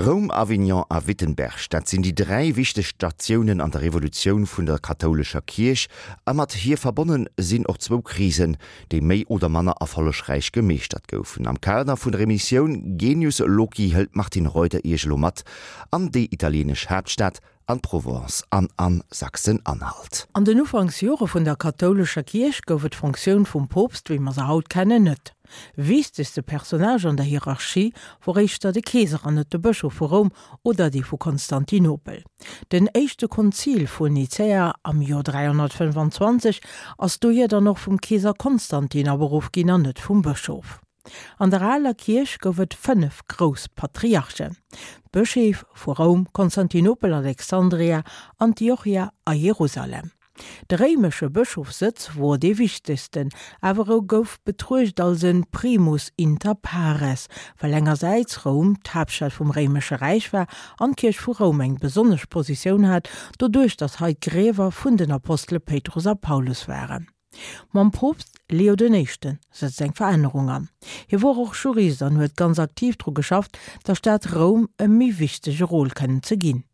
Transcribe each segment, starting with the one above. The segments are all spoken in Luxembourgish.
Roum, Avignon a Wittenberg, dat sinn déi 3 wichteg Statiounen an der Revolutioun vun der kathoulescher Kierch, a mat hir verbonne sinn och zwou Krisen, déi méi oder manner erfollegräich gemeeschtert goufen. Am Kader vun der Emissioun Genius Loci hëlt d'Martine Reuter Iech elo mat an déi italieenesch Haaptstad, an d'Provence an an Sachsen-Anhalt. An den Ufanksjore vun der kathoulescher Kierch gouf et d'Fonctioun vum Poopst, wéi mer se haut kennen, net. Wichtegste Personnage an der Hierarchie wor éischter de Keeser an net de Bëschof vu Roum oder dee vu Konstantinopel. Den éischte Konzil vun Nicäa am Joer 325 ass dohier dann och vum Keeser Konstantin aberuff ginn an net vum Bëschof. An der aler Kierch gouf et 5 grouss Patriarchen, d'Bëscheef vu Roum, Konstantinopel, Alexandria, Antiochia a Jerusalem. De réimesche Bëschofssëtz wor dee wichtegsten, awer e gouf betruecht als en primus inter pares, well engersäits Roum d'Haaptstad vum réimesche Räich war an d'Kierch vu Roum eng besonnesch Positioun hat, doduerch datt hei d'Griewer vun den Apostele Péitrus a Paulus waren. Mam Poopst Leo den Éischte sëtzt eng Verännerung an. Hie wor och Jurist an huet ganz aktiv dru geschafft, der Stad Roum e méi wichtege Rôle kënnen ze ginn.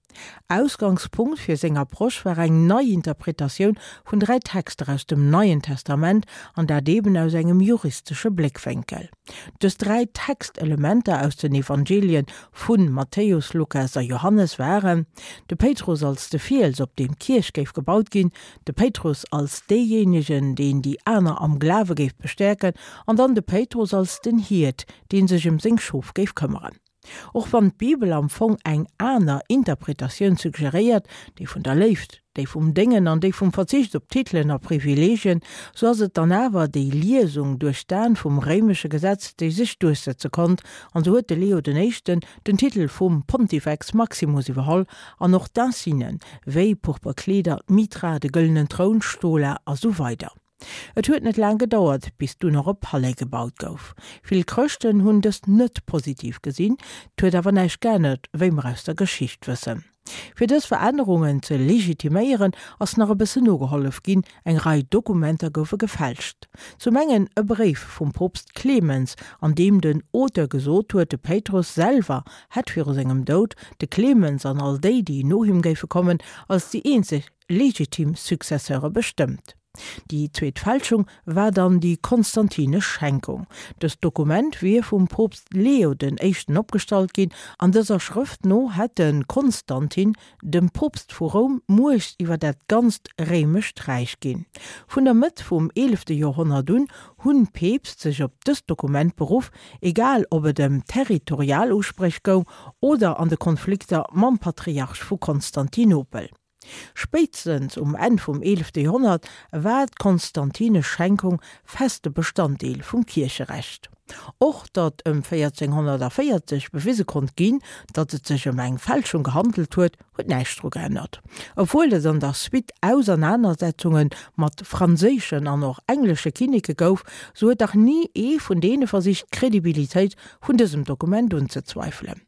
Ausgangspunkt fir seng Approche war eng nei Interpretatioun vun 3 Texter aus dem Neien Testament, an dat eben aus engem juristesche Bléckwénkel. Dës 3 Textelementer aus den Evangelien vu Matthäus, Lukas a Johannes waren, de Péitrus als de Fiels, op deem d'Kierch géif gebaut ginn, de Péitrus als deejéinegen, deen déi aner am Glawe géif bestäerken, an dann de Péitrus als den Hiert, dee sech ëm seng Schof géif këmmeren. Och wann d'Bibel am Fong eng aner Interpretatioun suggeréiert, déi vun der Léift, déi vum Déngen an déi vum Verzicht op Titelen a Privileegien, sou ass et dann awer déi Liesung duerch d'Aen vum réimesche Gesetz, déi sech duerchsetze konnt, an sou huet de Leo den Éischten den Titel vum Pontifex Maximus iwwerholl an och d'Insignen, wéi purper Kleeder, d'Mitra, de gëllenen Troun, d'Stola a sou weider. Et huet net laang gedauert, bis dunn och e Palais gebaut gouf. Vill Chrëschten hunn dëst net positiv gesinn, 't huet awer näischt geännert, wéi mer aus der Geschicht wëssen. Fir dës Verännerungen ze legitiméieren, ass nach e bëssen nogehollef ginn, eng Rei Dokumenter goufe gefälscht. Zum engen e Bréif vum Poopst Clemens, an deem den Auteur gesot huet, de Péitrus selwer hätt viru sengem Doud de Clemens an all déi, déi no him géife kommen, als déi eenzeg legitim Successeure bestëmmt. Déi zweet Fälschung war dann déi konstantinesch Schenkung. Dëst Dokument wier vum Poopst Leo den Éischten opgestallt ginn. An dëser Schrëft no hätt de Konstantin dem Poopst vu Roum Muecht iwwer dat ganzt réimescht Räich ginn. Vun der Mëtt vum eelefte Joerhonnert un hunn d'Peepst sech op dëst Dokument beruff, egal ob et ëm territorial Uspréch goung oder an de Konflikter mam Patriarch vu Konstantinopel. Spéitstens um Enn vum eelefte Joerhonnert war d'konstantinesch Schenkung feste Bestanddeel vum Kiercherecht. Och datt ëm 1440 bewise konnt ginn, datt et sech ëm eng Fälschung gehandelt huet, huet näischt dru geännert. Obwuel et an der Suite Ausernanersetzunge mat franséischen an och englesche Kinneke gouf, sou huet dach ni ee vun deene versicht d'Credibilitéit vun dësem Dokument unzezweifelen.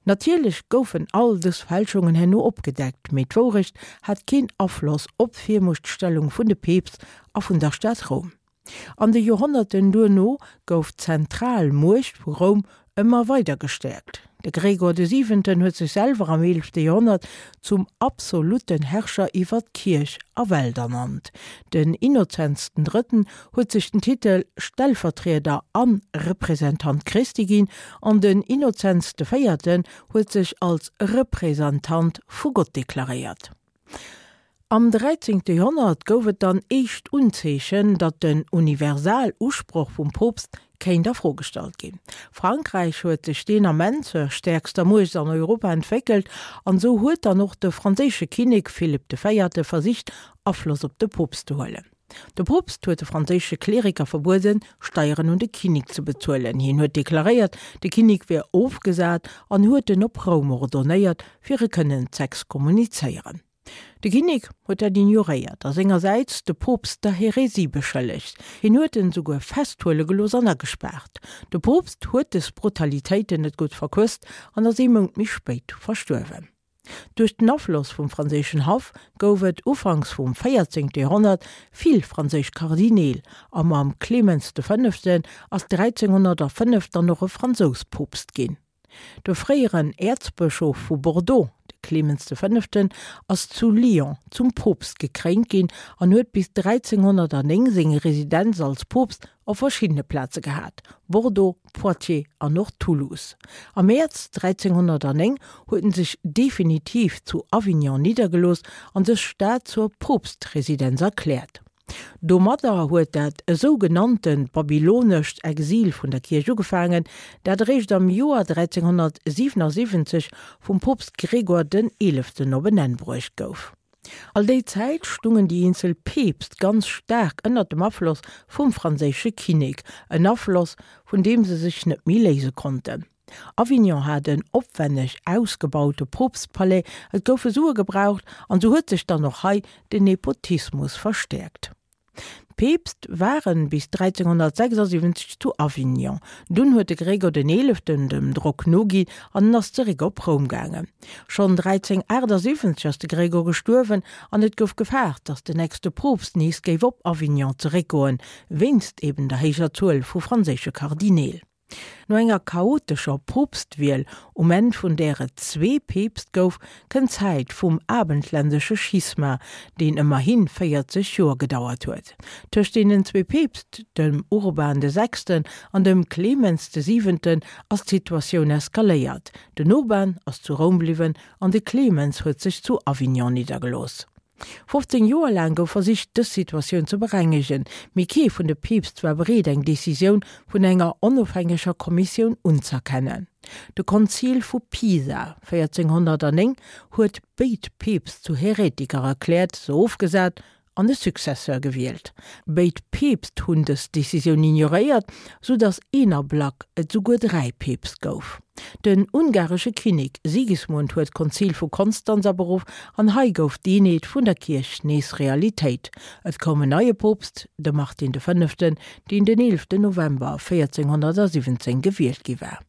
Natierlech goufen all dës Fälschungen herno opgedeckt, mee d'Wourecht hat keen Afloss op d'Virmuechtstellung vun de Peepst a vun der Stad Roum. An de Joerhonnerten duerno gouf d'zentral Muecht vu Roum ëmmer weider gestäerkt. De Gregor de Siwenten huet sech selwer am eelefte Joerhonnert zum absolutten Herrscher iwwer d'Kierch a Welt ernannt. Den Innozenz den Drëtten huet sech den Titel Stellvertrieder an Representant Christi ginn an den Innozenz de Véierten huet sech als Representant vu Gott deklaréiert. Am dräizéngte Joerhonnert gouf et dann éischt Unzeechen, datt den Universalusproch vum Poopst kéint a Fro gestallt ginn. Frankräich huet sech deen Ament zur stäerkster Muecht an Europa entwéckelt an esou huet dann och de franséische Kinnek Philipp de Véierte versicht Afloss op de Poopst ze huelen. De Poopst huet de franséische Kleriker verbueden, Steieren un de Kinnek ze bezuelen. Hien huet deklaréiert, de Kinnek wier ofgesat an huet en op Roum ordonéiert, fir e kënnen z'exkommunizéieren. De Kinnek huet dat ignoréiert a sengersäits de Poopst der Häresie beschëllegt. Hien huet en esouguer festhuele gelooss an agespaart. De Poopst huet des Brutalitéiten net gutt verquësst an ass ee Mount méi spéit verstuerwen. Duerch den Afloss vum franséischen Haff gouf et ufanks vum 14. Joerhonnert vill franséisch Kardineel a mam Clemens de Fënneften ass 1305 dann och e Fransous Poopst ginn. De fréieren Äerzbëschof vu Bordeaux, de Clemens de Fënneften, ass zu Lyon zum Poopst gekréint ginn an huet bis 1309 seng Residenz als Poopst op verschiddene Plaze gehat, Bordeaux, Poitiers an och Toulouse. Am Mäerz 1309 huet en sech definitiv zu Avignon niddergelooss an dës Stad zur Poopstresidenz erkläert. Domadder huet dat esou genannte babylonescht Exil vun der Kierch ugefaangen, dat eréischt am Joer 1377 vum Poopst Gregor den Eeleften op en Enn bruecht gouf. All déi Zäit stungen déi eenzel Peepst ganz staark ënnert dem Afloss vum franséische Kinnek, en Afloss, vun deem se sech net méi léise konnten. Avignon hat en opwenneg ausgebaute Poopstpalais, et goufe Sue gebraucht an sou huet sech dann och hei den Nepotismus verstäerkt. D'Peepst waren bis 1376 zu Avignon, dunn huet de Gregor den Eeleften dem Drock noginn an en ass zeréck op Roum gaangen. Schonn 1378 ass de Gregor gestuerwen an et gouf gefaart, datt den nächste Poopst nees géif op Avignon zeréckgoen, wéinst eben der héijer Zuel vu franséische Kardineel. No enger chaotescher Poopstwiel, um Enn vun där et zwee Peepst gouf, kënnt d'Zäit vum abendländesche Schisma, deen ëmmerhi 40 Joer gedauert huet. Tëscht deenen zwee Peepst, dem Urban de Sechsten an dem Clemens de Siwenten, ass d'Situatioun eskaléiert. Den Urban ass zu Roum bliwwen an de Clemens huet sech zu Avignon niddergelooss. 15 Joer laang gouf versicht, dës Situatioun ze berengegen, mee kee vun de Peepst war bereet, eng Decisioun vun enger onofhängeger Kommissioun unz'erkennen. De Konzil vu Pisa 1409 huet béid Peepst zu Heretiker erkläert, se ofgesat an e Successeur gewielt. Béid Peepst hunn dës Decisioun ignoréiert, sou datt een Ablack et souguer 3 Peepst gouf. Den ungaresche Kinnek Sigismund huet d'Konzil vu Konstanz aberuff an hei gouf d'Eenheet vun der Kierch nees Realitéit. Et koum en neie Poopst, de Martin de Fënneften, deen den 11 November 1417 gewielt gi war.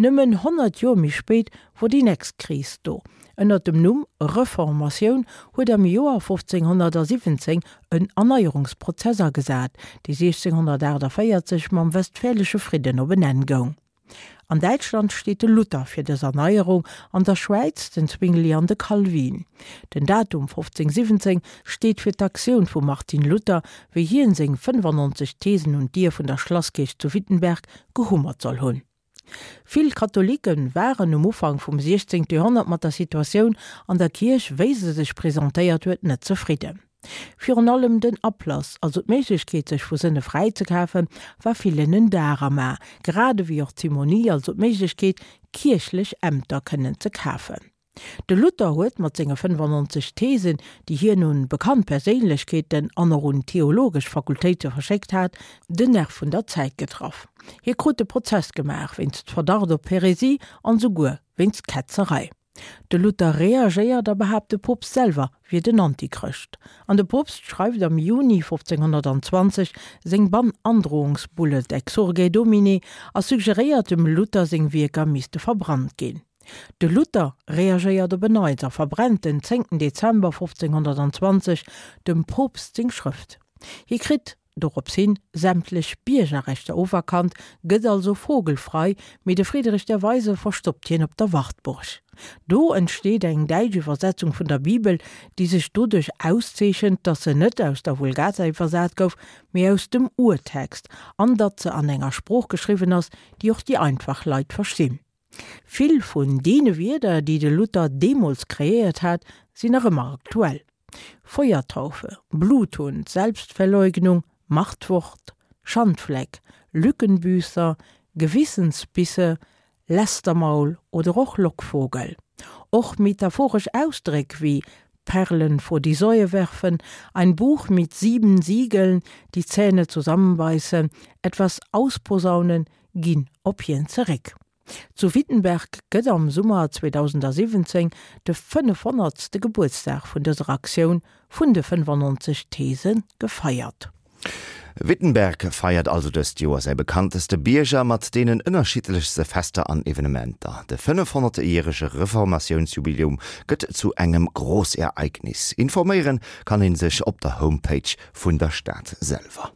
Nëmmen 100 Joer méi spéit wor déi nächst Kris do. Ënnert dem Numm Reformatioun huet am Joer 1517 en Erneierungsprozess agesat, dee 1648 mam Westfälesche Fridden op en Enn goung. An Däitschland steet de Luther fir dës Erneierung, an der Schwäiz den Zwingli an de Calvin. Den Datum 1517 steet fir d'Aktioun vum Martin Luther, wéi hien seng 95 Thesen un d'Dier vun der Schlasskierch zu Wittenberg gehummert soll hunn. Vill Katholike waren um Ufank vum 16. Joerhonnert mat der Situatioun an der Kierch, wéi se sech presentéiert huet, net zefridden. Virun allem den Ablass, also d'Méiglechkeet sech vu Sënne fräi ze kafen, war villen en Dar am A, grad ewéi och d'Simonie, also d'Méiglechkeet kierchlech Ämter kënnen ze kafen. De Luther huet mat senge 95 Thesen, déi hien un bekannt Perséinlechkeeten an och un theologesch Fakultéite verschéckt hat, den Nerv vun der Zäit getraff. Hie krut de Prozess gemaach wéinst Verdacht op Häresie an souguer wéinst Ketzerei. De Luther reagéiert a behaapt de Poopst selwer wier den Antichrëscht. An de Poopst schreift am Juni 1520 seng Bann-Androhungsbulle Exsurge Domine a suggeréiert dem Luther seng Wierker misste verbrannt ginn. De Luther reagéiert op en Neits a verbrennt den 10 Dezember 1520 dem Poopst seng Schrëft. Hie kritt dorops hin sämtlech Biergerrechter oferkannt, gëtt also vogelfrei, mee de Friedrich der Weise verstoppt hien op der Wartburg. Do entsteet eng däitsch Iwwersetzung vun der Bibel, déi sech doduerch auszeechent, datt se net aus der Vulgata iwwersat gouf, mee aus dem Urtext, an datt se an enger Sprooch geschriwwen ass, déi och déi einfach Leit verstinn. Vill vun deene Wierder, déi de Luther deemools kreéiert hat, sinn nach ëmmer aktuell, Feuertaufe, Bluthund, Selbstverleugnung, Machtwort, Schandfleck, Lückenbüßer, Gewissensbisse, Lästermaul oder och Lockvogel. Och metaphoresch Ausdréck wéi Perlen vor die Säue werfen, ein Buch mit sieben Siegeln, die Zähne zusammenbeißen, etwas ausposaunen, ginn op hien zeréck. Zu Wittenberg gëtt am Summer 2017 de 500. Gebuertsdag vun dëser Aktioun vun de 95 These gefeiert. Wittenberg feiert also dëst Joer säi bekannteste Bierger mat deenen ënnerschiddlechste Fester an Evenementer. De 500. järege Reformatiounsjubiläum gëtt zu engem Großereignis. Informéiere kann ee sech op der Homepage vun der Stad selwer.